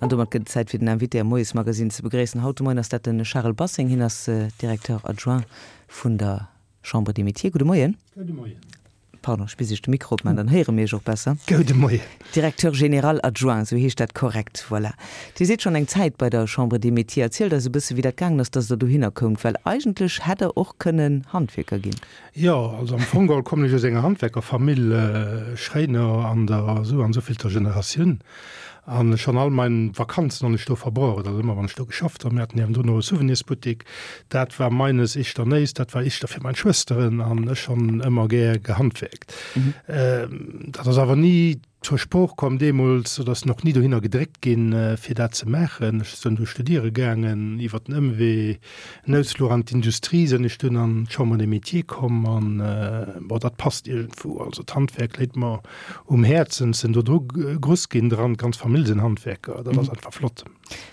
An domat gëtt et Zäit fir den Invité am Moiesmagazine ze begréissen. Haut de Moien ass dat de Charel Basseng. Hien ass Directeur adjoint vun der Chambre des Métiers. Gudde Moien. Gudde Moien. Pardon, ech bis ech de Mikro opman, dann héiere mir iech och besser. Goude Moien. Directeur général adjoint, esou heescht dat korrekt. Voilà. Dir sidd schonn eng Zäit bei der Chambre des Métiers. Erzielt eis e bësse wéi dat gaangen ass, dass Der dohinner koumt, well eigentlech hätt Der och kënnen Handwierker ginn. Jo, also am Fong geholl kommen ech aus enger Handwerkerfamill, Schréiner an der esou an esouvill-ter Generatioun. An schonn all mein Vakanzen honn ech do verbruecht, also ëmmer wann ech do geschafft honn. Mir haten niewendrun och e Souvenirsbuttik, dat war meines ischter néist, dat war ischter fir mein Schwësteren an ech honn ëmmer gär gehandwerkt. Dat ass awer ni zur Sprooch komm deemools oder ass och ni dohinner gedréckt ginn, fir dat ze maachen. Ech sënn du studiere gaangen, iwwer den Ëmwee, en Ausfluch an d'Industrie, sënn ech dunn an d'Chambre des Métiers komm an, bon, dat passt iergendwou. Also d'Handwerk léit mer um Häerzen, sinn do dru gruss ginn dran, d'ganz Famill sinn Handwerker, dat ass einfach flott.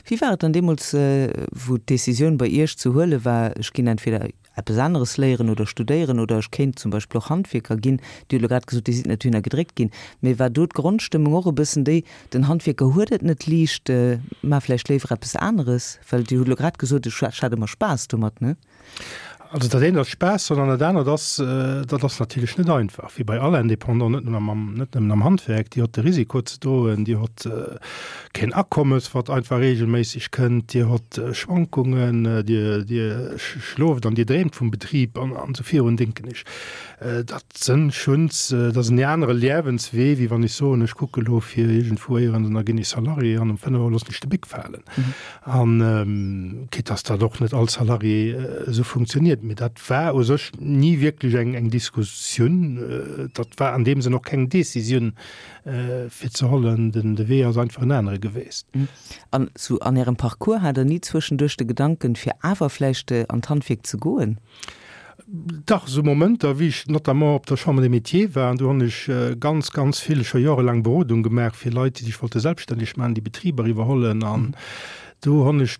Wéi war et dann deemools, wou d'Decisioun bei Iech ze huele war, ech ginn entweder eppes aneres léieren oder studéieren oder ech kéint zum Beispill och Handwierker ginn? Dir hutt elo grad gesot, Dir sidd net dohinner gedréckt ginn, mee war do d'Grondstëmmung och e bëssen déi, den Handwierker huet et net liicht, maach vläicht léiwer eppes aneres? Well Dir hutt elo grad gesot, ech hat ëmmer Spaass domat, ne? Also dat eent ass Spaass, sondern dat anert ass, dat ass natierlech net einfach, wéi bei all Indépendant, net nëmmen am, net nëmmen am Handwerk, Dir hott de Risiko ze droen, Dir hott keen Akommes, wat einfach regelméisseg kënnt, Dir hott Schwankungen, Dir, Dir schlooft an Dir dreemt vum Betrib an, an esou virun, denken ech. Dat sënn schuns, dat ass en anere Liewenswee, wéi wann ech soen, ech kucke lo fir iergendwou éierens an da ginn ech Salarié an um 5 Auer loossen ech de Bic falen. An quitte dass dat och net all Salarié esou funktioniert, mee dat war u sech ni wierklech eng eng Diskussioun. Dat war an deem Sënn och keng Décisioun fir ze hollen. Den de Wee ass einfach en anere geweest. An sou an Ärem Parcours hat Der ni zwëschenduerch de Gedanken, fir awer vläicht an d'Handwierk ze goen? Dach, esou Momenter, wéi ech notamment op der Chambre des Métiers war, an do hunn ech ganz, ganz vill, scho jorelaang Berodung gemaach fir Leit, déi sech wollte selbststänneg maachen, déi Betriber iwwerhollen. An do hunn ech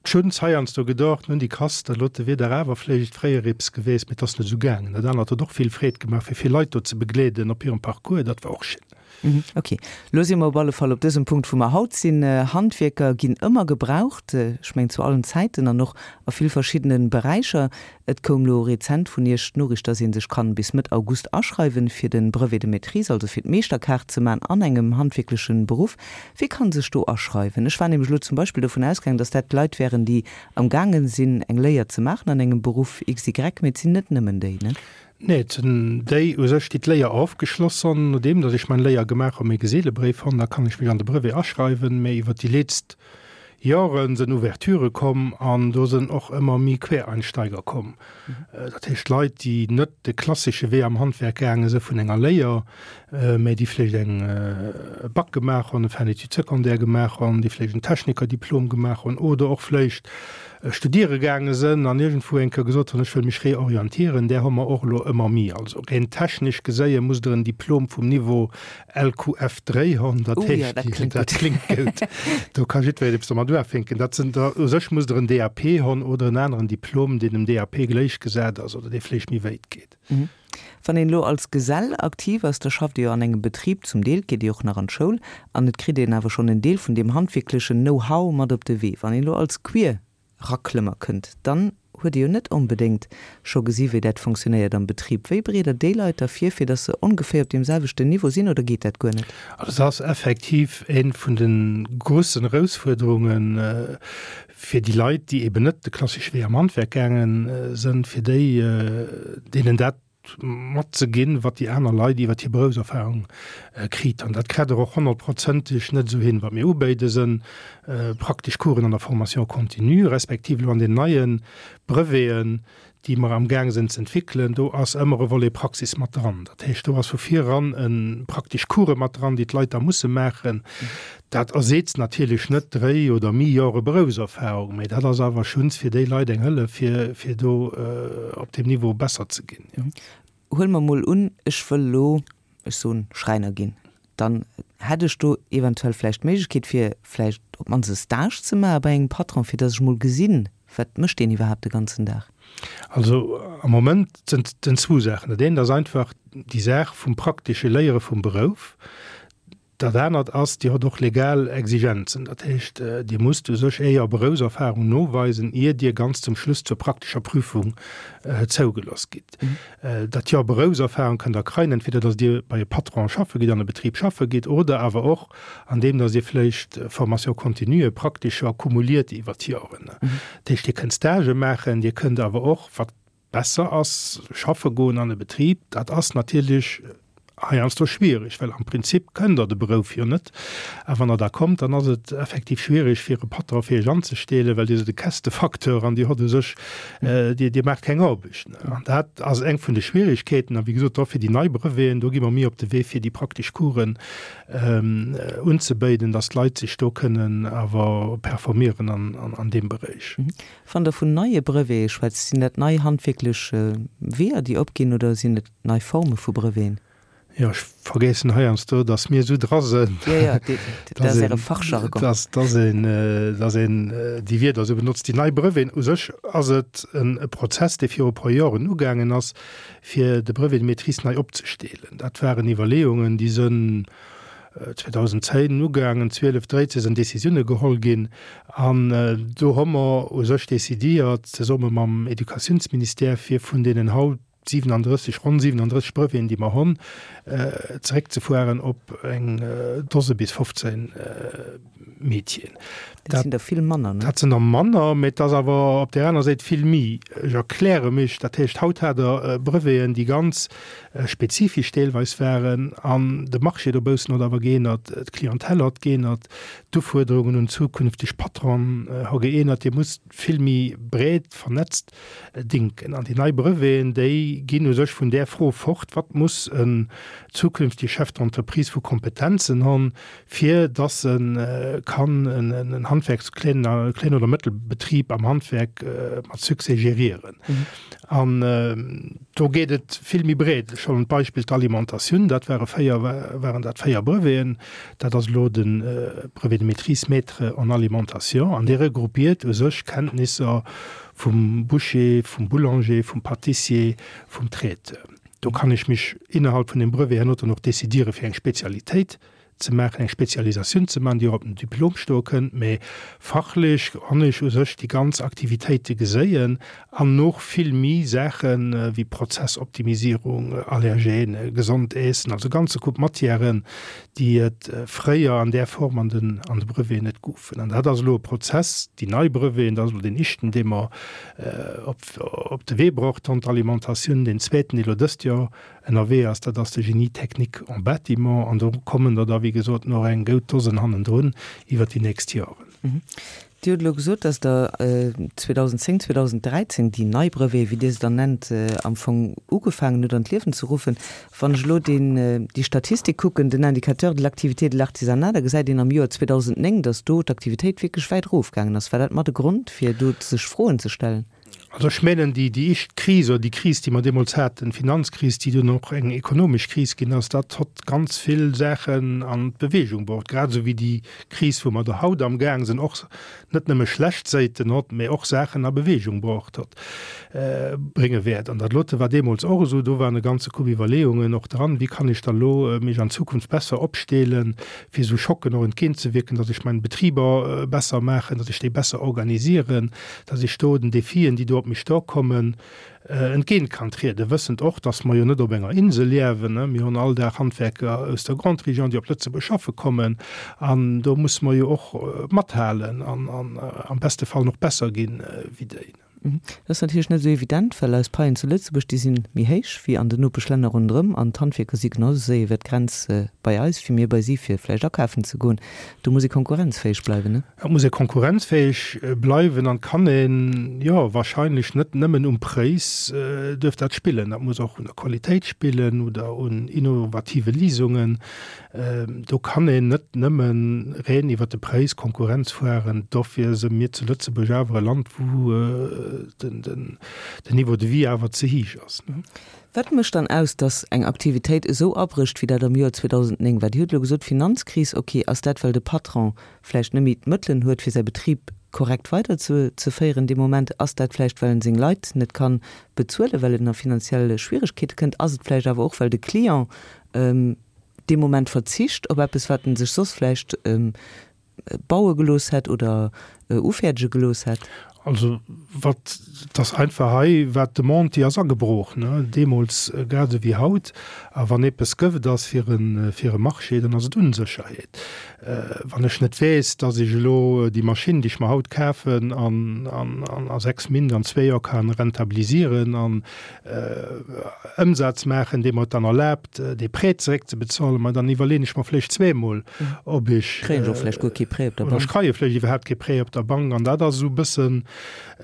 schonns heiansdo gedocht, nun, déi Kass, dat lote wier dach awer vléicht fréier eppes geweest, mee et ass net esou gaangen. Dat anert huet och vill Freed gemaach, fir vill Leit do ze begleeden op hirem Parcours, dat war och schéin. Ok, lo si mer op alle Fall op dësem Punkt, wou mer haut sinn. Handwierker ginn ëmmer gebraucht, ech mengen zu allen Zäiten an och a vill verschiddene Beräicher. Et koum lo rezent vun Iech d'Noriicht, dass ee sech kann bis Mëtt August aschreiwen, fir de Brevet de maîtrise, also fir d'Meeschterkaart ze man an engem handwierklechen Beruff. Wie kann sech do aschreiwen? Ech war nämlech lo zum Beispill dovun ausgaangen, dass dat Leit wären, déi am gaangen sinn eng Léier ze maachen an engem Beruff XY, mee et sinn net nëmmen déi, ne? Nee, et sinn déi u sech, déi d'Léier ofgeschloss honn. Nodeem datt ech mein Léier gemaach hunn, méi Geselebréif honn, da kann ech mech an de Brevet aschreiwen. Mä iwwer déi leetzt Joren sënn Ouverturë komm an do sënn och ëmmer méi Quereinsteiger komm. Dat heescht Leit, déi net de klassesche Wee am Handwerk gaange së vun enger Léier, mä déi vläicht eng e Bac gemaach honn, e Fin d'études secondaires gemaach honn, déi vläicht en Technikerdiplom gemaach honn oder och vläicht studiere gaange sënn an iergendwou eng Kéier gesot hunn, ech wëll mech reorientieren, där hu mer och elo ëmmer méi. Also reen technesch geséie musst Der en Diplom vum Niveau LQF 3 hunn, dat heescht, dat kléngt gutt, do ka jiddwereen eppes domat uafänken. Dat sinn der, u sech musst Der en DAP hunn oder en aneren Diplom, deen dem DAP gläichgesat ass oder dee vläicht méi wéit geet. Wann een elo als Gesell aktiv ass, da schafft ee jo an engem Betrib, zum Deel geet ee och nach an d'Schoul an et kritt een awer schonn en Deel vun deem handwierklechen Know-how mat op de Wee. Wann een elo als Queerraklëmmer kënnt, dann huet ee jo net onbedéngt scho gesi wéi dat fonctionnéiert am Betrib. Wéi bereet Der déi Leit da vir, fir datt se ongeféier op deem selwechten Niveau sinn oder geet dat guer net? Also dat ass effektiv eent vun de grussen Erausfuerderungen fir déi Leit, déi eben net de klassesche Wee am Handwerk gaange sënn, fir déi, deenen dat matzeginn, wat déi aner Leit iwwer hir Beroufserfahrung kritt. An dat krätt der och honnertprozenteg net esou hin. Wat mir ubéide sënn praktesch Coursen an der Formation continue, respektiv elo an den neie Breveten, déi mer amgaang sinn ze entwéckelen, do ass ëmmer e Volet Praxis mat dran. Dat heescht, do ass vu vir eran e praktesch Course mat dran, déi d'Leit da musse maachen. Dat erseetzt natierlech net dréi oder méi Jore Beroufserfahrung, mä dat ass awer schuns fir déi Leit eng Hëllef, fir, fir do op deem Niveau besser ze ginn, jo. Huele mer mol un, ech wëll elo, ech soen, Schräiner ginn, dann hätt ech do eventuell vläicht d'Méiglechkeet, fir vläicht op d'mannst e Stage ze maache bei engem Patron, fir datt ech mol gesinn, wat mécht deen iwwerhaapt de ganzen Dag. Also am Moment sinn et zwou Saachen. Dat eent ass einfach déi Saach vum praktesche Léiere vum Berouf. Dat anert ass, Dir hutt och legal Exigenzen. Dat heescht, Dir musst u sech Äer Beroufserfahrung noweisen, ier Dir ganz zum Schluss zur praktescher Prüfung zougeloss gitt. Dat Joer Beroufserfahrung kënnt Der kreien, entweder datt Dir bei e Patron schaffe gitt, an e Betrib schaffe gitt, oder awer och andeem datt Dir vläicht Formation continue praktischer kumuliert iwwer d'Joren. Dat heescht, Dir kënnt Stagë maachen, Dir kënnt awer och, wat besser ass, schaffe goen an e Betrib. Dat ass natierlech heiansdo schwierig, well am Prinzip kënnt Der de Berouf jo net. A wann Der da kommt, dann ass et effektiv schwierig fir e Patron fir Iech anzestellen, well Dir sidd e Kästefacteur an Dir hott u sech, Dir, Dir maacht keng Aarbecht. An dat ass eng vun de Schwierigkeeten. A wéi gesot, dofir déi nei Breveten, do gi mer méi op de Wee fir déi praktesch Coursen unzebéiden, dass d'Leit sech do kënnen awer performieren an deem Beréich. Wann Der vun neie Brevete schwätzt, sinn dat nei handwierklech Weeër, déi opginn, oder sinn et nei Forme vu Breveten? Jo, ech vergéissen heiansdo, datt mir esou dra sënn, datt een, datt een déi Wierder esou benotzt, déi nei Breveten. U sech ass et e Prozess, dee viru e puer Joren ugaangen ass, fir de Brevet de maîtrise nei opzesteelen. Dat waren Iwwerleeungen, déi sënn 2010 ugaangen, 12, 13 sinn Décisioune geholl ginn an do hu mer u sech décidiert, zesumme mam Educatiounsministère, fir vun deenen haut 37, ronn 37 Breveten, déi mer hunn, zeréckzefueren op eng Dose bis 15 Métieren. Dat sinn der vill manner, ne? Dat sinn der manner, mä et ass awer op där aner Säit vill méi. Ech erkläre mech, dat heescht, haut hat Der Breveten, déi ganz spezifesch deelweis waren an de Marché dobaussen huet awer geännert, d'Clientèle huet geännert, d'Ufuerderungen un zukünfteg Patronen hu geännert. Dir musst vill méi breet vernetzt dinken. An déi nei Breveten, déi ginn u sech vun där Fro fort, Wat muss en zukünftege Chef d'entreprise vu Kompetenzen hunn, fir dass e kann en Handwerks-, Kleen oder Mëttelbetrib am Handwerk mat Succès gérieren. An do geet et vill méi breet. Ech huelen d'Beispill d'Alimentatioun, dat ware véier, waren dat véier Breveten. Dat ass elo de Brevet de maîtrise maître en alimentation an dee regroupiert u sech Kenntnisser vum Boucher, vum Boulanger, vum Pâtissier, vum Traiteur. Do kann ech mech innerhalb vun deem Brevet herno dann och décidiere fir eng Spezialitéit ze maachen, eng Spezialisatioun ze maachen, déi och op dem Diplom stoe kënnt, mä fachlech honn ech u sech déi ganz Aktivitéite geséien an och vill méi Saache wéi Prozessoptimisierung, Allergène, gesond Äessen, also e ganze Koup Matièren, déi et fréier an där Form an den an de Breveten net goufen. An dat ass elo e Prozess, déi nei Breveten, dat ass elo deen éischten, dee mer op op de Wee bruecht honn, d'Alimentatioun, deen zweeten, dee elo dëst Joer ënnerwee ass, dat ass de Génie technique en bâtiment, an do kommen der da wéi gesot nach eng goud Dosen hannendrun iwwert déi nächst Joren. Dir hutt elo gesot, dass Der 2010, 2013 déi nei Breveten, wéi Dir se dann nennt, am Fong ugefaangen hutt an d'Liewen ze ruffen. Wann ech elo deen, déi Statistik kucken, den Indicateur de l'activité de l'artisanat, da gesäit een am Joer 2009, dass do d'Aktivitéit wierklech wäit erofgaangen ass. War dat mat e Grond, fir do sech Froen ze stellen? Also ech mengen, déi, déi éischt Kris oder déi Kris, déi mer deemools haten, d'Finanzkris, déi dunn och eng ekonomesch Kris ginn ass, dat hott ganz vill Saachen an d'Bewegung bruecht, grad esou wéi déi Kris, wou mer der haut amgaang sinn, och net nëmme schlecht Séiten hott, mä och Saachen a Bewegung bruecht hott, brénge wäert. An dat lote war deemools och esou, do waren e ganze Koup Iwwerleeungen och dran, wéi kann ech da lo mech an Zukunft besser opstelen, fir esou Schocken och entgéintzewierken, datt ech meng Betriber besser maachen, datt ech déi besser organisieren, dass ech do den Defien, déi do op mech dorkommen, entgéint kann trieden, wëssend och, dass mer jo net op enger Insel liewen. Mir hunn all Dag Handwerker aus der Grande Région, déi op Lëtzebuerg schaffe kommen, an do musse mer jo och mathalen an am beste Fall nach besser ginn wéi déi. Dat ass natierlech net esou evident, well eis Paien zu Lëtzebuerg, déi si méi héich wéi an den Nopeschlänner ronderëm an d'Handwierker si genau esou séier iwwer d'Grenz bei eis wéi mir bei si, fir vläicht akafen ze goen. Do muss ee konkurrenzfäeg bleiwen, ne? Et muss ee konkurrenzfäeg bleiwen an kann een, jo, wahrscheinlech net nëmmen um Präis duerf dat spillen. Dat muss och un der Qualitéit spillen oder un innovative Lisungen. Do kann een net nëmme reen iwwert de Präis Konkurrenz fueren. Dofir si mir zu Lëtzebuerg awer e Land, wou den Niveau de vie awer ze héich ass, ne? Wat mécht dann aus, datt eng Aktivitéit esou abrécht, wéi dat am Joer 2009 war? Dir hutt elo gesot, Finanzkris, ok. Ass dat, well de Patron vläicht net méi d'Mëttelen huet, fir säi Betrib korrekt weider ze féieren dee Moment? Ass dat vläicht, well en seng Leit net ka bezuelen, well en a finanziell Schwieregkeete kënnt? Ass et vläicht awer och, well de Client. dee Moment verzicht op eppes, wat en sech soss vläicht baue gelooss hätt oder ufäerdege gelooss hätt? Also wat, et ass einfach hei, war d'Demande, déi ass agebrooch, ne, deemools grad esou wéi haut. A wann eppes gëft ass fir e, fir e Marché, dann ass et Unsécherheet. Wann ech net weess, dass ech elo déi Maschinn, déi ech mer haut kafen, an, an, an a 6 Mint, an zwee Joer kann rentabilisieren an Ëmsaz maachen, dee mer et dann erlaabt, dee Prêt zeréckzebezuelen, ma dann iwwerleeën ech mer vläicht zweemol, ob ech. Kréien ech och vläicht guer kee Prêt op der Bank. Oder ech kreie vläicht iwwerhaapt kee Prêt op der Bank. An dat ass esou e bëssen,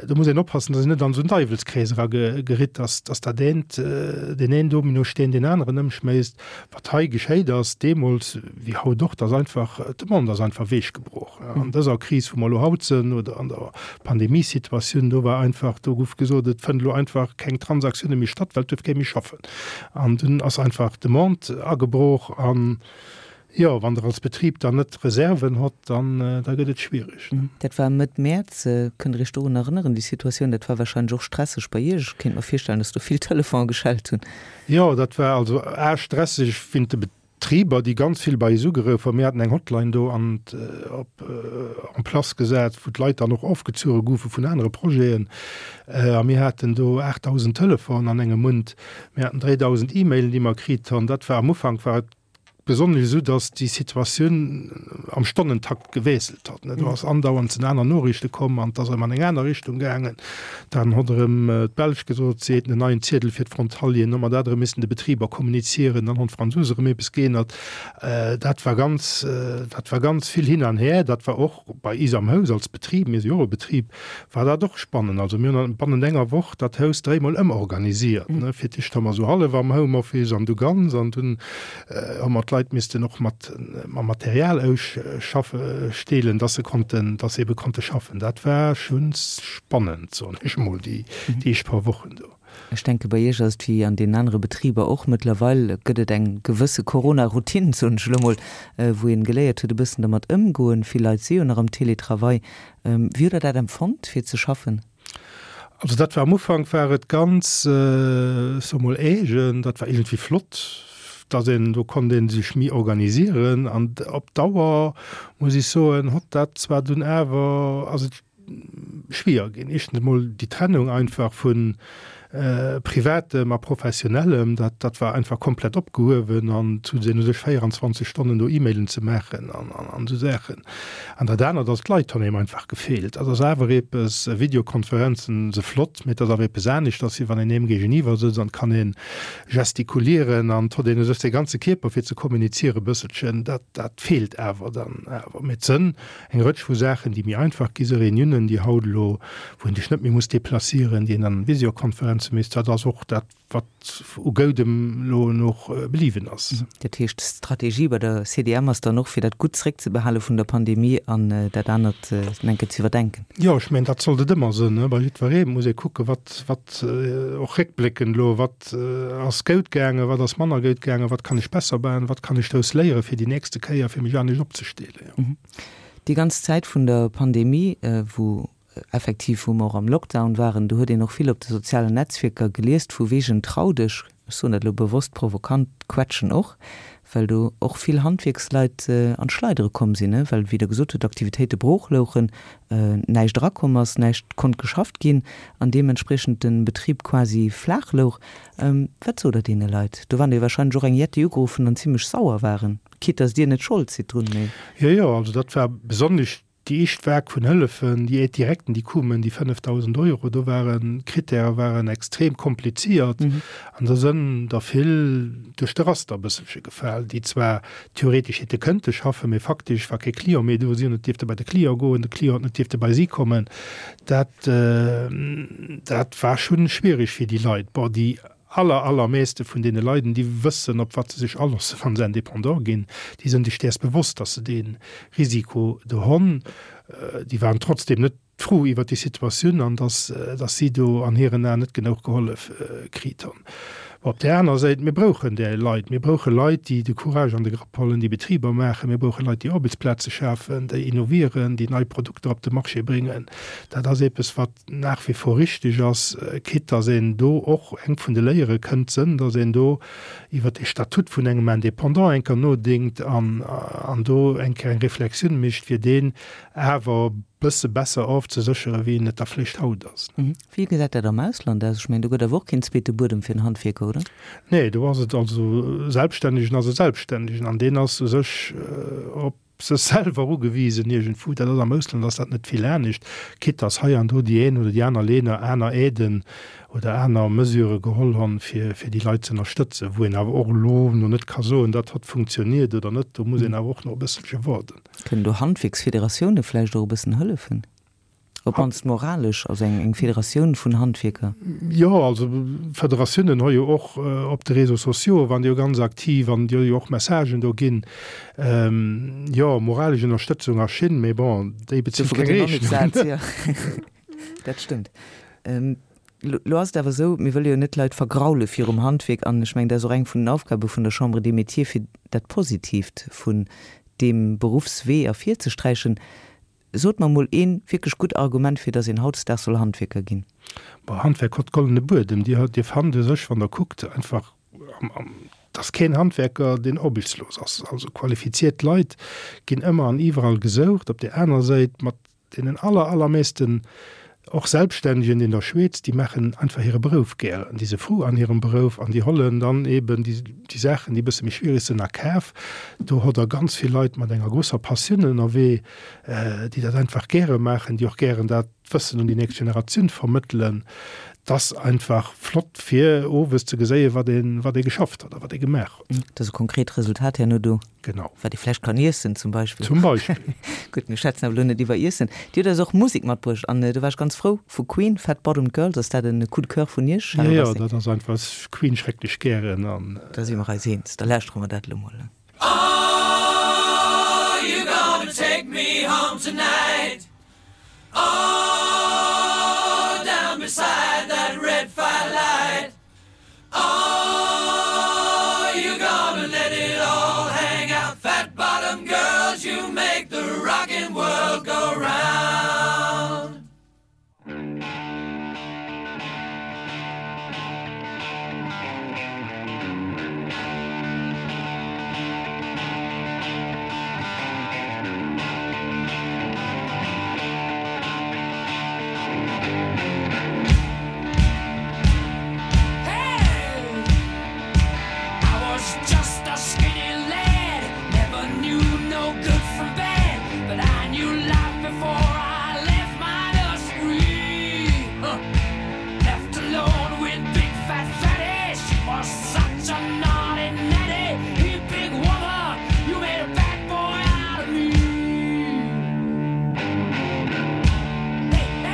do muss een oppassen, datt een net an esou en Deiwelskrees erageritt, datt, datt dat eent, deen een Dominosteen deen aneren ëmschméisst. Wat hei geschéit ass, deemools wéi haut och, dass einfach, d'Demande ass einfach weechgebrach. An dëser Kris, wou mer elo haut sënn, oder an der Pandemiesituatioun, do war einfach, do gouf gesot, et fënnt elo einfach keng Transaktioune méi statt, well et duerf kee méi schaffen. An dunn ass einfach d'Demande agebrach. An jo, wann Der als Betrib dann net Reserven hott, dann, da gëtt et schwierig. Dat war Mëtt Mäerz. Kënnt Der Iech dorun erënneren, déi Situatioun? Dat war wahrscheinlech och stresseg bei Iech. Ech kéint mer virstellen, dass do vill Telefonen geschellt hunn. Jo, dat war also a stresseg wéint de Betriber, déi ganz vill bei eis ugeruff hunn. Mir haten eng Hotline do an op en place gesat, wou d'Leit dann och ofgezuere goufe vun anere Projeten. A mir haten do 8.000 Telefonen an engem Mount. Mir haten 3.000 E-Mailen, déi mer kritt hunn. Dat war am Ufank war et Besonnesch esou, datt déi Situatioun am Stonnentakt gewiesselt hat. Do ass andauernd sinn aner Noriichte komm an et ass erëm an eng aner Richtung gaangen. Dann hott erëm d'Belsch gesot, si hätten en neien Ziedel fir d'Frontalieren. Hu mer dat erëm missen de Betriber kommunizieren. Dann honn d'Fransous erëm eppes geännert. Dat war ganz, dat war ganz vill hin an her. Dat war och bei is am Haus als Betrib, mir si jo och e Betrib, war dat och spannend. Also mir hunn bannent enger Woch dat Haus dréimol ëmorganisiert. Fir d'éischt hu mer esou hallef am Homeoffice an du ganz an dunn hu mer d'Leit missten och mat mam Material ausschaffe steelen, dass se konnten, dass se ebe konnte schaffen. Dat war schonns spannend, soen ech emol, déi éischt paar Wochen do. Ech denke bei Iech ass et wéi an deenen anere Betriber och, mëttlerweil gëtt et eng gewësse Corona-Routine, soen ech elo mol, wou een geléiert huet e bëssen dermat ëmgoen. Vill Leit si jo nach am Télétravail. Wéi hutt Der dat empfonnt fir ze schaffen? Also dat war am Ufank war et ganz, ech soe mol eegen, dat war iergendwéi flott, dass een, do konnt ee sech méi organisieren an op Dauer muss ech soen, hott dat zwar dunn awer, ass et schwier ginn. Éischtens emol déi Trennung einfach vu Privatem a Professionellem, dat, dat war einfach komplett opgehuewen an et hu sinn u sech 24 Stonnen do E-Mailen ze maachen an, an, an esou Saachen. An dat anert ass, d'Leit hunn engem einfach gefeelt. Dat ass awer eppes, Videokonferenzen se flott, mee et ass awer eppes aneschters, wéi wann een eem géigeniwwer sëtzt an et kann ee gestikulieren an et huet een u sech säi ganze Kierper fir ze kommuniziere bësselchen. Dat, dat feelt awer dann awer. Mee et sënn Eng Rëtsch vu Saachen, déi méi einfach gi si, Reuniounen, déi haut elo, wou een sech net méi muss deplacieren, déi een an Visiokonferenze misst, dat ass och dat, wat u Goudem elo noch bliwwen ass. Dat heescht, d'Strategie bei der CDM ass dann och, fir dat Gutt zréckzebehale vun der Pandemie an dat anert eng Kéier ze iwwerdenken? Jo, ech mengen, dat sollt et ëmmer sinn. Bei jiddweree muss ee kucken, wat, wat och réckbléckend elo, wat ass goud gaangen, wat ass manner goud gaangen, wat kann ech besser maachen, wat kann ech drous léieren fir déi nächste Kéier, fir mech anescht opzestellen. Déi ganz Zäit vun der Pandemie, wou effektiv, wou mer och am Lockdown waren, do huet een och vill op de sozialen Netzwierker geliest vu wegen Trau dech, ech soen dat elo bewosst provokant, quetschen och, well do och vill Handwierksleit an d'Schleidere komm sinn, well, wéi Der gesot hutt, d'Aktivitéite brooch louchen, näischt erakomm ass, näischt konnt geschafft ginn an deementspriechend de Betrib quasi flaach louch. Wat sot Der deene Leit? Do waren der jo wahrscheinlech och eng Jetti ugeruffen an zimlech sauer waren. Quitte dass Dir net Schold sidd drun, mee. Jo, jo, also dat war besonnesch déi éischt Vague vun Hëllefen, déi Aides directen, déi koumen, déi 5.000 Euro, do waren d'Krittäre waren extrem kompliziert an do sënn der vill duerch de Raster e bësselche gefal, déi zwar theoretesch hätte kënnte schaffen, mee faktesch war kee Client méi do, si hunn net dierfte bei de Client goen, de Client huet net dierfte bei si kommen. Dat, dat war schonn schwierig fir déi Leit. Bon, déi aller, allermeeste vun deene Leiden, déi wëssen, op wat se sech aloossen, wa se Indépendant ginn. Déi sënn sech däers bewosst, dass se dee Risiko do honn. Déi waren trotzdem net frou iwwert déi Situatioun an dass, dass si do an hiren Aen net genouch gehollef kriit honn. Op där aner Säit, mir brauchen där Leit. Mir brauche Leit, déi de Courage an de Grapp hollen, déi Betriber maachen. Mir brauche Leit, déi Aarbechtsplaze schafen, déi innovieren, déi nei Produkter op de Marché bréngen. Dat ass eppes, wat nach wie vor richtig ass, quitte dass een do och eng vun de Léiere kënnt sënn, dass een do iwwert de Statut vun engem Indépendant eng Kéier nodénkt an an do eng Kéier eng Reflexioun mécht, fir deen awer e bësse besser ofzeséchere wéi en et da vläicht haut ass. Wéi gesäit dat am Ausland aus? Ech mengen, do gëtt awer och keen zweete Buedem fir en Handwierker, oder? Nee, do ass et also, e Selbststännegen ass e Selbststännegen an deen ass u sech op sech selwer ugewisen iergendwou. Dat ass am Ausland ass dat net vill anescht, quitte dass hei an do déi een oder déi aner Länner aner Aiden oder aner Mesurë geholl honn, fir fir déi Leit ze ënnerstëtzen, wou een awer och elo no net ka soen, dat hott funktioniert oder net. Do muss een awer och nach e bësselche waarden. Kënnen do Handwierksfederatioune vläicht och e bëssen hëllefen? Op mannst moralesch, also eng Federatioun vun Handwierker. Jo, also Federatiounen hu jo och op de Réseaux sociaux waren déi jo ganz aktiv an déi hu jo och Messagen do ginn. Jo, moralesch Ënnerstëtzung ass schin, mee bon, déi bezilt keng Rechnungen. Dat stëmmt. Lo ass et awer esou, mir wëlle jo net d'Leit vergraule virum Handwierk an ech mengen, dat ass och eng vun den Aufgabe vun der Chambre des Métiers, fir dat Positiivt vun deem Beruffswee ervirzesträichen. Sot mer mol een wierklech gutt Argument fir dass een hautdesdaags soll Handwierker ginn. Bon, Handwerk hott goldene Buedem. Dir, dir fannt u sech, wann der kuckt, einfach am, am, dass keen Handwerker, deen aarbechtslos ass. Also qualifiziert Leit ginn ëmmer an iwwerall gesoucht. Op där aner Säit, mat deenen aller, allermeesten och Selbststännegen in der Schweez, déi maachen einfach hire Berouf gären, déi se frou an hirem Berouf an déi hollen dann eben déi, déi Saachen, déi e bësse méi schwierig sinn, a Kaf. Do hutt Der ganz vill Leit mat enger grousser Passioun ënnerwee, déi dat einfach gäre maachen, déi och gären dat Wëssen un déi nächst Generatioun vermëttelen. 't ass einfach flott fir owes ze geséien, wat ee, wat ee geschafft huet a wat ee gemaach huet. Et ass e konkret Resultat herno do. Genau. Wat ee vläicht kann iessen zum Beispill. Zum Beispill. Gutt, mir schwätzen awer elo net iwwer Iessen. Dir hutt eis och Musek matbruecht an do war ech ganz frou. Vu Queen, Fat Bottomed Girls, ass dat en Coup de Coeur vun Iech, Charel Jo, jo, dat ass einfach, ech Queen schrecklech gären an. Da si mer eis eens. Da lauschtere mer dat elo mol. Oh, you gonna take me home tonight Oh, down beside that red firelight Oh, you gonna let it all hang out Fat bottom girls, you make the rockin' world go round Hey! I was just a skinny lad, never knew no good from bad, but I knew life before I left my nursery. Huh. Left alone with big fat fatty, she was such a naughty natty. Hey, big woman, you made a bad boy out of me. Hey, hey!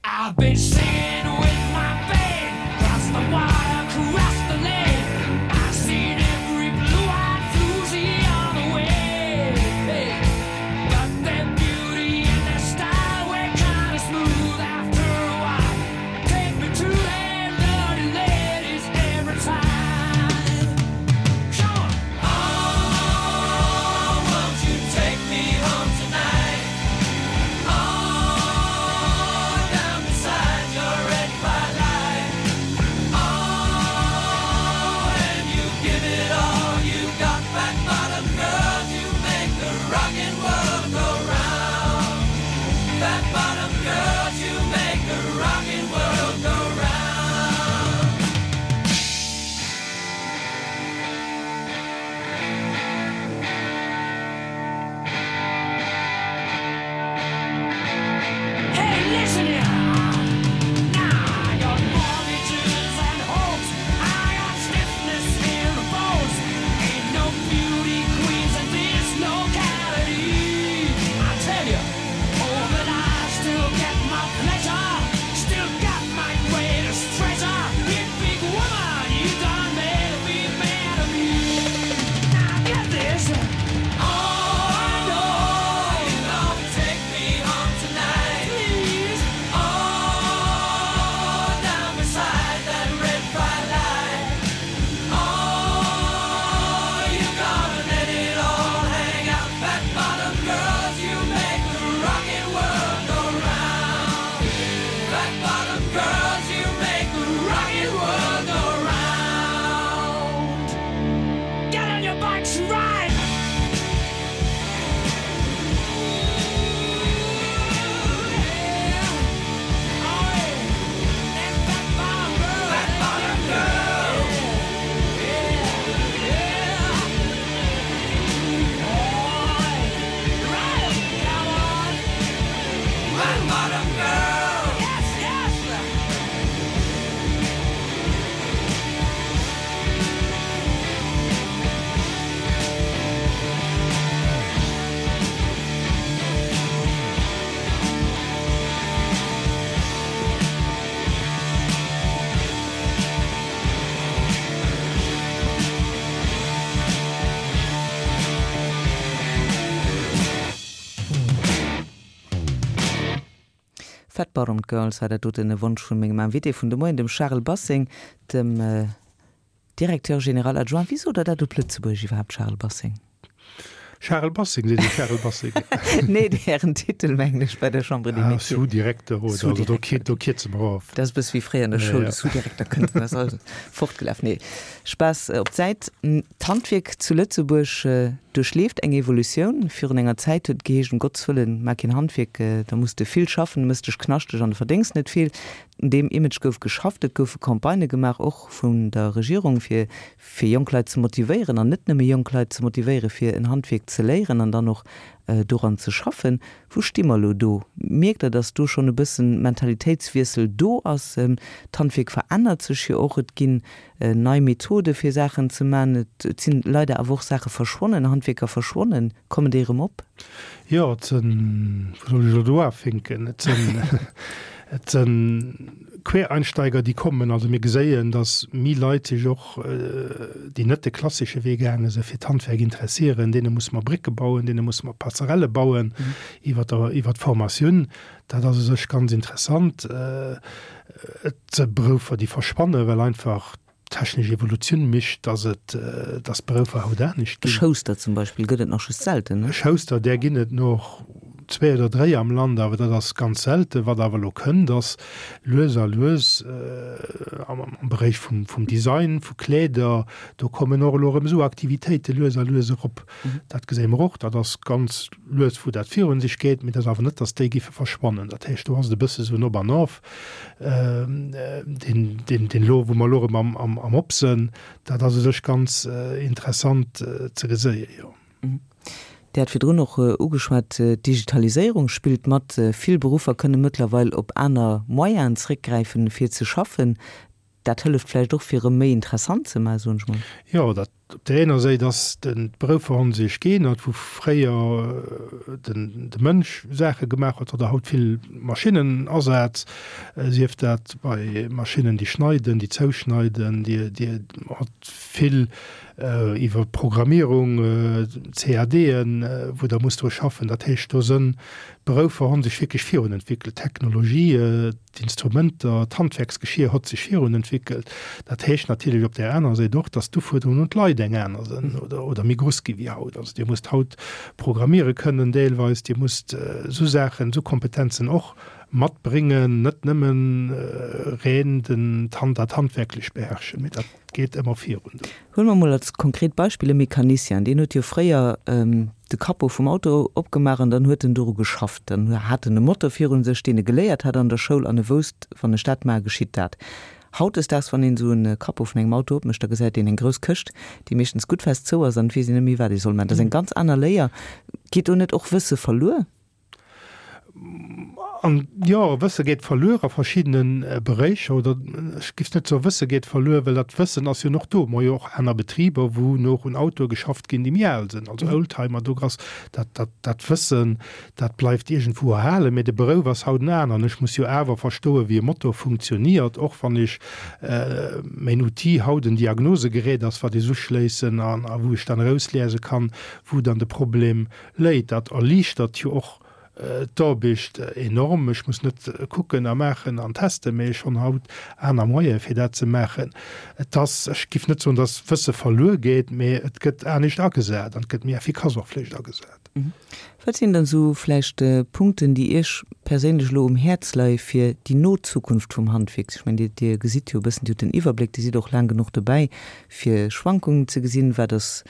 I've been singing with my band across the water, across the land. I've seen every blue-eyed floozy on the way. Hey. But their beauty and their style were kinda smooth after a while. Take me to them dirty ladies every time. Come on. Oh, won't you take me home tonight? Oh, down beside your. Bottomed Girls war dat doten e Wonsch vun mengem Invité vun de Moien, dem Charel Basseng, dem Directeur général adjoint. Wéi sot Der dat op Lëtzebuergesch iwwerhaapt, Charel Basseng? Charel Basseng seet ee Charel Basseng. Nee, Ären Titel mengen ech bei der Chambre des Métiers. Ah, Sous-Direkter oder, also do do kierze mer of. Dat ass e bësse wéi fréier an der Schoul, de Sous-Direkter kënnt, dann ass alles fortgelaf. Nee, Spaass op d'Säit. D'Handwierk zu Lëtzebuerg duerchleeft eng Evolutioun. Virun enger Zäit huet et geheescht, um Gotts Wëllen, maach keen Handwierk, da muss de vill schaffen, du mëss dech knaschteg an du verdéngs net vill. Un deem Image gouf geschafft, et goufe Campagnë gemaach, och vun der Regierung, fir fir jonk Leit ze motivéieren an net nëmme jonk Leit ze motivéieren, fir en Handwierk ze léieren an dann och doran ze schaffen. Wou sti mer elo do? Mierkt Der, datt do schonn e bëssen Mentalitéitswiessel do ass? D'Handwierk verännert sech jo och, et ginn nei Methode fir Saachen ze man. Et sinn leider awer och Saache verschwonnen, Handwierker verschwonnen. Kommen déi erëm op? Jo, et sënn, wou soll ech elo do afinken? Et sënn, et sënn Quereinsteiger, déi kommen. Also mir geséien, datt méi Leit sech och, déi net de klassesche Wee gaange sinn, fir d'Handwerk interessieren. Deene musse mer Brécke bauen, deene musse mer Passerelle bauen iwwer der, iwwer d'Formatioun. Dat ass u sech ganz interessant. Et si Berouffer, déi verschwannen, well einfach d'technesch Evolutioun mécht, dass et, dass d'Berouffer haut anescht ginn. E Schouster zum Beispill gëtt et nach just selten, ne? E Schouster, där ginn et nach zwéi oder dréi am Land, awer dat ass ganz selten. Wat awer elo kënnt, ass lues a lues am Beréich vum Design vu Kleeder, do kommen och elo erëm esou Aktivitéite lues a lues erop. Dat geséie mer och, dat ass ganz lues wou dat virun sech geet, mee dat ass awer net, datt déi géife verschwannen. Dat heescht, do ass et e bësse sou en Op an Of, deen, deen, deen elo, wou mer elo erëm am, am, am Op sënn. Dat ass u sech ganz interessant ze geséien, jo. Dir hat virdrun och ugeschwat, d'Digitaliséierung spillt mat. Vill Beruffer kënne mëttlerweil op aner Moyenen zréckgräifen, fir ze schaffen. Dat hëlleft vläicht och, fir erëm méi interessant ze maachen, soen ech mol. Jo, dat op där ener Séit ass den d'Berouffer hu sech geännert, wou fréier den de Mënsch Saache gemaach huet, huet der haut vill Maschinnen Asaz, sief dat bei Maschinnen, déi schneiden, déi zouschneiden, déi déi hat vill iwwer Programmierung, CADen, wou der muss dru schaffen. Dat heescht, do sënn d'Berouffer hu sech wierklech virun entwéckelt, d'Technologie, D'Instrumenter, d'Handwerksgeschier hott sech virun entwickelt. Dat heescht natierlech op där anerer Säit och, dass d'Ufuerderungen un d'Leit eng aner sënn oder, oder méi gruss gi wéi haut. Also Dir musst haut programmiere kënnen deelweis, Dir musst esou Saachen, esou Kompetenzen och matbréngen, net nëmmen reen den, dat Handwerklech beherrschen, mee dat geet ëmmer virun do. Huele mer mol als konkret Beispill e Mecanicien, deen huet jo fréier de Capot vum Auto opgemaach an dann huet en doru geschafft. Dann hat en e Motor virun sech, deen e geléiert hat an der Schoul an e wousst, wann ech dat maache geschitt dat. Hautdesdaags, wann een esou e Capot vun engem Auto opmécht, da gesäit een eng grouss Këscht, déi meeschtens gutt fest zou ass an et weess een net méi, wat ee soll maachen. Dat ass eng ganz aner Léier. Geet do net och Wësse verluer? An jo, Wësse geet verluer a verschiddene Beréicher, oder ech giff net soe Wësse geet verluer, well dat Wëssen ass jo nach do. Mer hu jo och aner Betriber, wou nach un Autoe geschafft ginn, déi méi al sinn, also Oldtimer. Do ass dat, dat, dat Wëssen, dat bleift iergendwou erhalen, mee de Berouf ass haut en aneren. Ech muss jo awer verstoen, wéi e Motor funktioniert, och wann ech mäin Outil haut en Diagnosegerät ass, wat ech uschléissen an a wou ech dann erausliese kann, wou dann de Problem Léit. Dat erliichtert jo och d'Aarbecht enorm. Ech muss net kucken a maachen an testen, mee ech honn haut aner Moyene fir dat ze maachen. Et ass, ech giff net soen, datt Wësse verluer geet, mee et gëtt anescht agesat an et gëtt méi effikass och vläicht agesat. Wat sinn dann esou vläicht Punkten, déi Iech perséinlech elo um Häerz leie fir déi no Zukunft vum Handwierk? Ech mengen, Dir gesitt jo e bëssen, Dir hutt den Iwwerbléck, Dir sidd och laang genuch dobäi, fir Schwankungen ze gesinn. Wat ass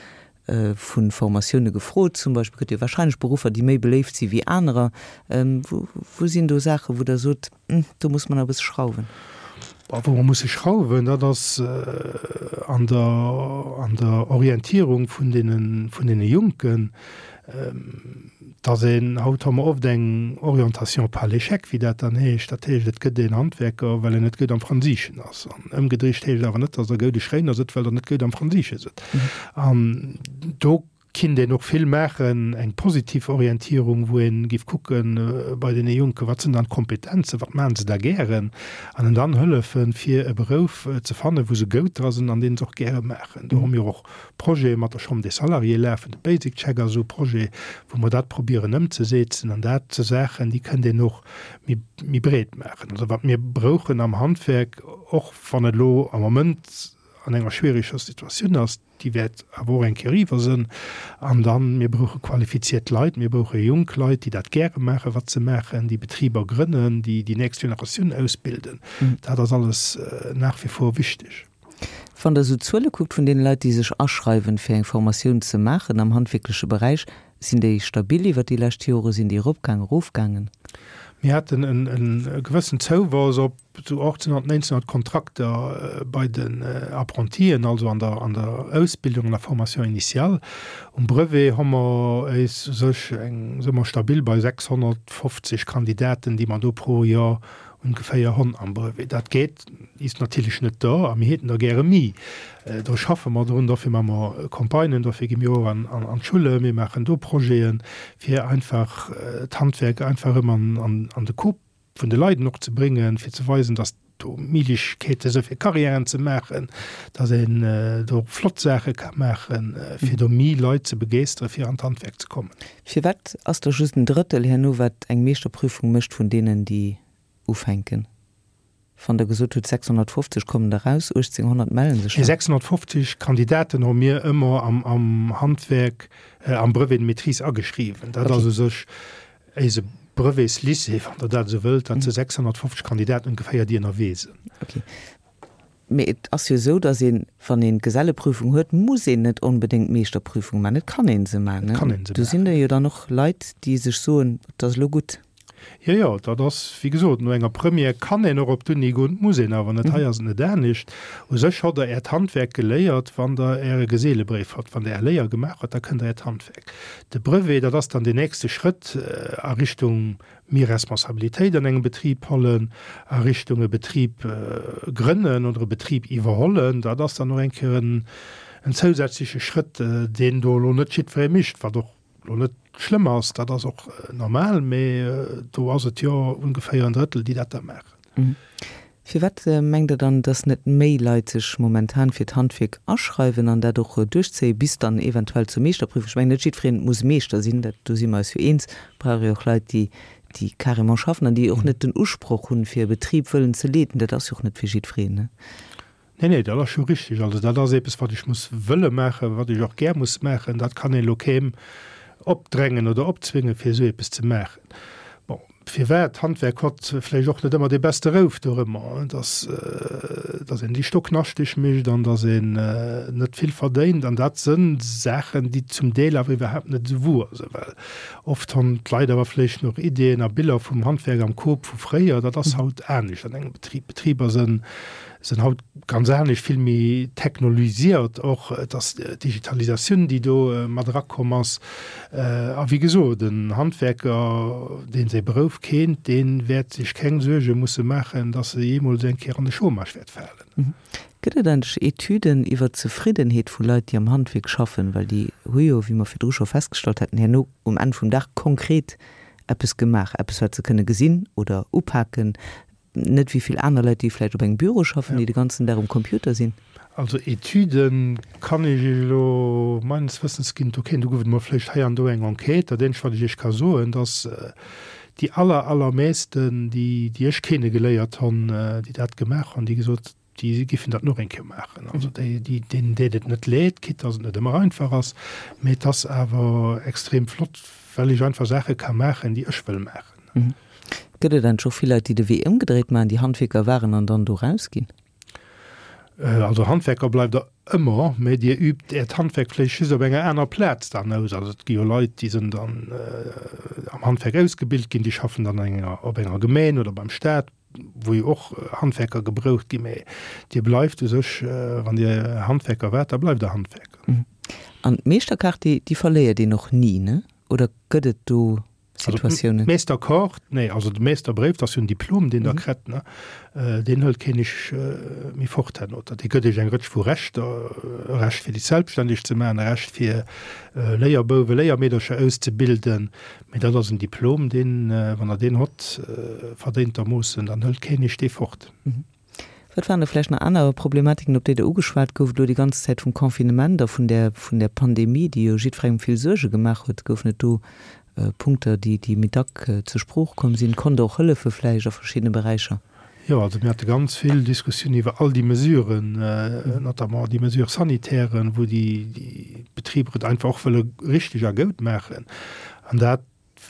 vu Formatioune gefrot? Zum Beispill gëtt jo wahrscheinlech Beruffer, déi méi beléift si wéi anerer. Wou sinn do Saachen, wou Der sot, do muss mer nach e bësse schrauwen? Wou mer musse schrauwen, dat ass an der, an der Orientierung vun deene, vun deene Jonken. Dass een, haut hu mer oft eng Orientation par l'échec, wéi dat dann heescht. Dat heescht, et gëtt een Handwerker, well en net gutt am Fransiischen ass. An ëmgedricht heescht awer net, dass der goude Schréiner sidd, well der net gutt am Fransiische sidd. An do. kinnt een och vill maachen, eng positiv Orientierung, wou ee giff kucken bei deene Jonken, wat sinn dann d'Kompetenzen, wat maachen se da gären, an en dann hëllefen, fir e Berouf ze fannen, wou se goud dra sinn an deen se och gäre maachen. Do hu mir och Projete mat der Chambre des Salariés lafen, de Basic Check ass esou e Projet, wou mer dat probieren ëmzesetzen, an dat si Saachen, déi kënnt een och méi, méi breet maachen. Also wat mir brouchen am Handwerk, och wann et elo am Moment an enger schwiereger Situatioun ass, déi wäert awer och eng Kéier eriwwer sënn. An dann, mir brauche qualifiziert Leit, mir brauche jonk Leit, déi dat gäre maachen, wat se maachen, déi Betriber grënnen, déi déi nächst Generatioun ausbilden. Dat ass alles nach wie vor wichteg. Wann Der esou d'Zuele kuckt vun deene Leit, déi sech aschreiwen, fir eng Formatioun ze maachen am handwierkleche Beräich, sinn déi stabil iwwert déi lescht Jore? Sinn déi eropgaangen, erofgaangen? Mir haten e gewëssen Zouwachs op esou 1800, 1900 Kontrakter bei den Apprentien, also an der an der Ausbildung, an der Formation initiale. Um Brevet hu mer éis u sech eng, si mer stabil bei 650 Kandidaten, déi mer do pro Joer ongeféier honn am Brevet. Dat geet is natierlech net do a mir häten der gäre mi. Do schaffe mer drun, dofir maache mer Campagnen, dofir gi mir och an an d'Schulle, mir maachen do Projeten, fir einfach d'Handwerk einfach erëm an an de Kop vun de Leiden och ze bréngen, fir ze weisen, datt do Méiglechkeete si fir Karriären ze maachen, datt een do och flott Saache ka maachen, fir do méi Leit ze begeeschteren, fir an d'Handwerk ze kommen. Firwat ass da just en Drëttel herno, wat eng Meeschterprüfung mécht vun deenen, déi ufänken? Wann Der gesot hutt, 650 kommen der raus, 1.800 mellen sech Nee, dann. 650 Kandidaten hu mir ëmmer am Handwerk, am Brevet de maîtrise ageschriwwen. Dat ass u sech Éise Brevetslycée, wann Der dat esou wëllt, dat si 650 Kandidaten ongeféier, déi ënnerwee sinn. Ok. Mee et ass jo esou, datt een, wann een d'Geselleprüfung huet, muss een net onbedéngt d'Meeschterprüfung maachen. Et kann ee se maachen. Et kann ee se Do sinn maachen. der jo dann och Leit, déi sech soen, et ass elo gutt. Jo, jo, dat ass, wéi gesot, no enger Première kann een och op d'Uni goen, et muss een awer net. Hei ass et net anescht. U sech hott Der Äert Handwerk geléiert, wann Der Äre Geselebréif hott. Wann Der Är Léier gemaach hutt, da kënnt Der Äert Handwerk. De Brevet, dat ass dann deen nächste Schrëtt a Richtung méi Responsabilitéit an engem Betrib hollen, a Richtung e Betrib grënnen oder e Betrib iwwerhollen. Dat ass dann och eng Kéier en zousätzleche Schrëtt, deen do elo net jiddweree mécht, wat och elo net schlëmm ass, dat ass och normal, mee do ass et jo ongeféier en Drëttel, déi dat da maachen. Firwat mengt Der dann, dass net méi Leit sech momentan fir d'Handwierk aschreiwen an dat och duerchzéien, bis dann eventuell zur Meeschterprüfung? Ech mengen, net jiddwereen muss Meeschter sinn, dat, do si mer eis jo eens. Et brauch ee och Leit, déi, déi carrément schaffen an déi och net den Usproch hunn, fir e Betrib wëllen ze leeden. Dat ass jo och net fir jiddwereen, ne? Nee, nee, dat ass scho richtig. Also dat ass eppes, wat ech muss wëlle maachen, wat ech och gär muss maachen. Dat kann een elo keem opdrängen oder opzwingen, fir esou eppes ze maachen. Bon, firwat? D'Handwerk hott vläicht och net ëmmer dee beste Rouf dorëmmer, dass, dass een déi Stocknaschteg mécht an dass een net vill verdéint. An dat sënn Saachen, déi zum Deel awer iwwerhaapt net esou wuer sënn, well oft honn d'Leit awer vläicht nach Ideeën a Biller vum Handwerk am Kop vu fréier. Dat ass haut anescht an engem Betrib. Betriber sënn sinn haut ganz anescht, vill méi technolisiert och. Et ass d'Digitalisatioun, déi do mat erakomm ass. A wéi gesot, en Handwerker, dee säi Berouf kennt, dee wäert sech keng Suerge musse maachen, datt e jeemools eng Kéier an de Chômage wäert falen. Gëtt et eigentlech Etüden iwwer d'Zefriddenheet vu Leit, déi am Handwierk schaffen? Well déi hu jo, wéi mer virdru scho festgestallt haten, herno um Enn vum Dag konkret eppes gemaach, eppes, wat se kënne gesinn oder upaken, Net wéi vill aner Leit, déi vläicht op engem Büro schaffen, déi de ganzen Dag um Computer sinn. Also Etüden kann ech Iech elo meines Wëssens ginn, do kéint, do gouf et emol vläicht hei an do eng Enquête. Dat eenzegt wat ech Iech ka soen, dass déi aller, allermeesten, déi, déi ech kenne geléiert honn, déi dat gemaach honn, déi gesot, déi giffen dat nach eng Kéier maachen. Also déi, déi, deenen deet et net leed, quitte dass et net ëmmer einfach ass, mee et ass awer extrem flott, well ech einfach Saache ka maachen, déi ech wëll maachen. Gëtt et eigentlech och vill Leit, déi de Wee ëmgedréit maachen, déi Handwierker waren an dann do rausginn? Also Handwerker bleift der ëmmer, mä Dir übt Äert Handwerk vläicht just op enger aner Plaz dann aus. Also et gi jo Leit, déi sinn dann am Handwerk ausgebilt ginn, déi schaffen dann an enger, op enger Gemeen oder beim Staat, wou jo och Handwerker gebraucht ginn. Mä Dir bleift u sech, wann Dir Handwerker waart, da bleift Der Handwerker. An d'Meeschterkaart, déi, déi verléiert een och ni, ne? Oder gëtt et do. Situatiounen? D'Meesterkaart, nee, also de Meesterbréif, dat ass jo en Diplom, deen Der kritt, ne? Deen hëlt keen Iech méi fort herno. Dat dee gëtt Iech eng Rëtsch vu Rechter, e Recht fir Iech selbstständeg ze maachen, e Recht fir Léierbouwen, Léiermeedercher auszebilden. Mee dat ass en Diplom, deen, wann Der deen hott, verdéintermoossen, dann hëlt keen Iech dee fort. Wat waren da vläicht nach aner Problematiken, op déi Der ugeschwat gouft elo déi ganz Zäit vum Confinement a vun där, vun där Pandemie, déi jo jiddwerengem vill Suerge gemaach huet? Goufen et do Punkter, déi, déi méi dack zur Sprooch komm sinn? Konnt Der och hëllefe vläicht a verschiddene Beräicher? Jo, also mir hate ganz vill Diskussiounen iwwer all déi Mesuren, notamment déi Mesures sanitairen, wou déi, déi Betriber et einfach och wëlle richteg a goud maachen. An dat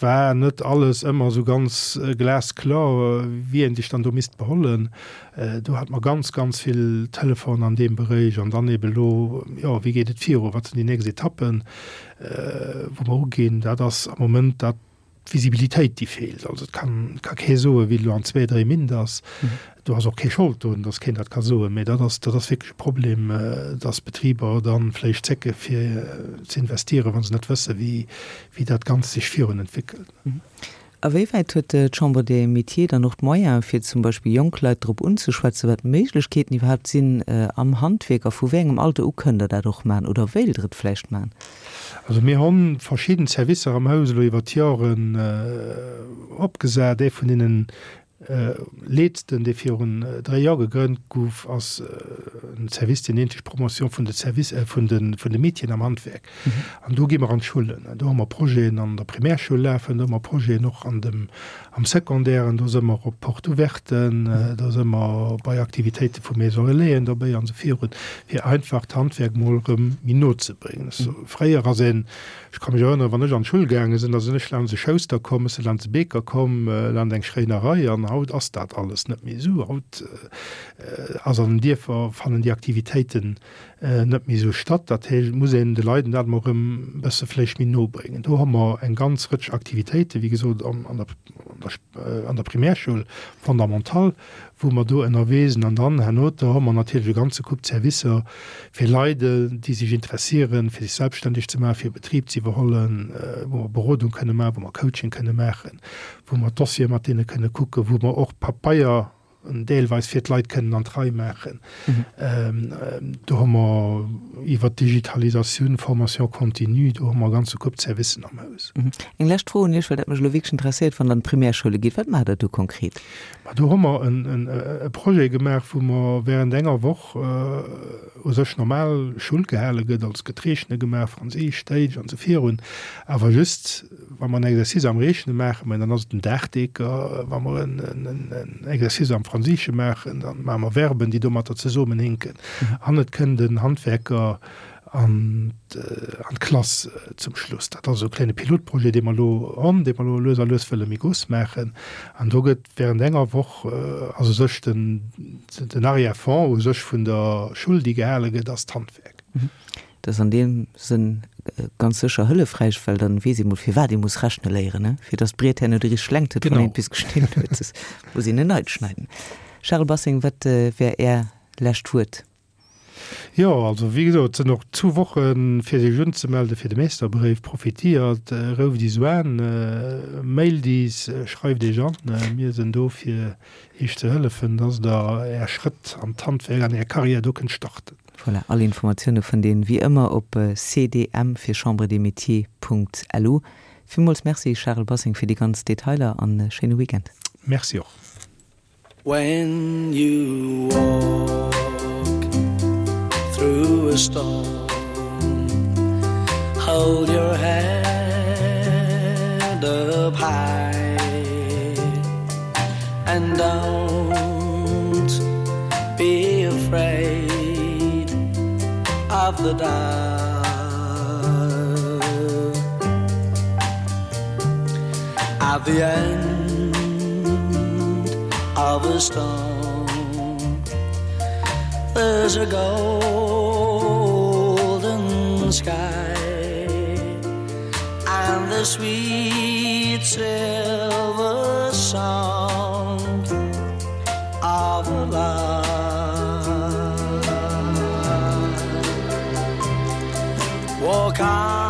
war net alles ëmmer esou ganz glasklar, wéi een sech dann do misst behollen. Do hate mer ganz, ganz vill Telefon an deem Beréich. An dann eben elo, jo, wéi geet et viru, wat sinn déi nächst Etappen, wou mer uginn. Dat ass am Moment dat, d'Visibilitéit, déi feelt. Also et kann, ka kee soen, wéi et elo an zwee, dréi Mintt ass. Do ass och kee Schold drun, datt keen dat ka soen. Mee dat ass, dat ass wierklech e Problem, datt Betriber da vläicht zécke fir ze investieren, wa se net wësse wéi, wéi dat Ganzt sech virun entwéckelt. A wéi wäit huet d'Chambre des Métiers dann och d'Moyene fir zum Beispill jonk Leit drop unzeschwätzen, wat d'Méiglechkeeten iwwerhaapt sinn am Handwierk a vu wéi engem Alter u kënnt Der dat och maachen oder wéilt Der et vläicht maachen? Also mir hu verschidden Servicer am Haus elo iwwer d'Joren opgesat. Ee vun deenen Letzten, dee virun dréi Joer gegrënnt gouf, ass en Service, deen nennt sech Promotion vun de Service, vun de, vun de Métieren am Handwerk. An do gi mer an d'Schullen. Do hu mer Projeten an der Primärschoul lafen, do hu mer Projeten och an dem, am Secondaire, do si mer op Porte ouverten, do si mer bei Aktivitéite vu Maison Relaisen dobäi an esou virun, fir einfach d'Handwerk mol erëm méi no ze bréngen. Fréier ass een Ech ka mech erënneren, wann ech an d'Schull gaange sinn, da sinn ech laanscht e Schouster komm, ech si laanscht e Beeker komm, laanscht eng Schréinerei an haut ass dat alles net méi esou. Haut ass an den Dierfer, fannen déi Aktivitéiten net méi esou statt. Dat heescht, et muss een de Leiden dat emol erëm e bësse vläicht méi no bréngen. Do hu mer eng ganz Rëtsch Aktivitéiten, wéi gesot, an der, an der Primärschoul fondamentale, wou mer do ënnerwee sinn. An dann herno, do hu mer natierlech e ganze Koup Servicer fir Leit, déi sech interessieren, fir sech selbstständeg ze maachen, fir e Betrib ze iwwerhollen, wou mer Berodung kënne maachen, wou mer Coaching kënne maachen, wou mer Dossiere mat deene kënne kucken, wou mer och Papeier deelweis fir d'Leit kënnen an d'Rei maachen. Do hu mer iwwert d'Digitalisatioun, Formation continue, do hu mer e ganze Koup Servicen am Haus. Eng lescht Fro un Iech, well dat mech elo wierklech interesséiert, Wann Der an d'Primärschoule gitt, wat maacht Der do konkret? Ma do hu mer e Projet gemaach, wou mer während enger Woch u sech normal Schull gehale gëtt, also et gëtt Reechne gemaach, Franséisch, Däitsch an esou virun, awer just wa mer en Exercice am Reechne maachen, mä dann ass et den Daachdeeker, wa mer en Exercice am Franséische maachen, da maache mer Verben, déi domatter zesummenhinken an et kënnt en Handwerker an d'Klass zum Schluss. Dat ass esou e kléine Pilotprojet, dee mer elo hunn, dee mer elo lues a lues wëlle méi grouss maachen. An do gëtt während enger Woch, ass u sech den, den Arrière-fond u sech vun der Schull, déi gehale gëtt, ass d'Handwerk. Dat ass an deem Sënn ganz sécher hëllefräich, well dann weess ee mol, firwat ee muss rechne léieren, ne? Fir datt d'Briet herno déi richteg Längt huet, wann een et bis geschnidden huet, soss muss een en neit schneiden. Charel Bassing, wat wär Är lescht Wuert? Jo, also wéi gesot, et sinn och zwou Woche fir sech unzemelden fir de Meesterbréif. Profitiert, rouft is uan, mailt is, schreift iech an. Mir sinn do fir iech ze hëllefen, dass der är Schrëtt an d'Handwerk, an är Carrière do kënnt starten. Voilà, all Informatioune fënnt een wéi ëmmer op cdm fir Chambre des Métiers Punkt lu. Villmools Merci Charel Bassing fir déi ganz Detailer an e schéine Weekend. Merci och. When you walk through a storm Hold your head up high And don't be afraid of the dark At the end of a storm There's a golden sky And the sweet silver sound of love Walk on.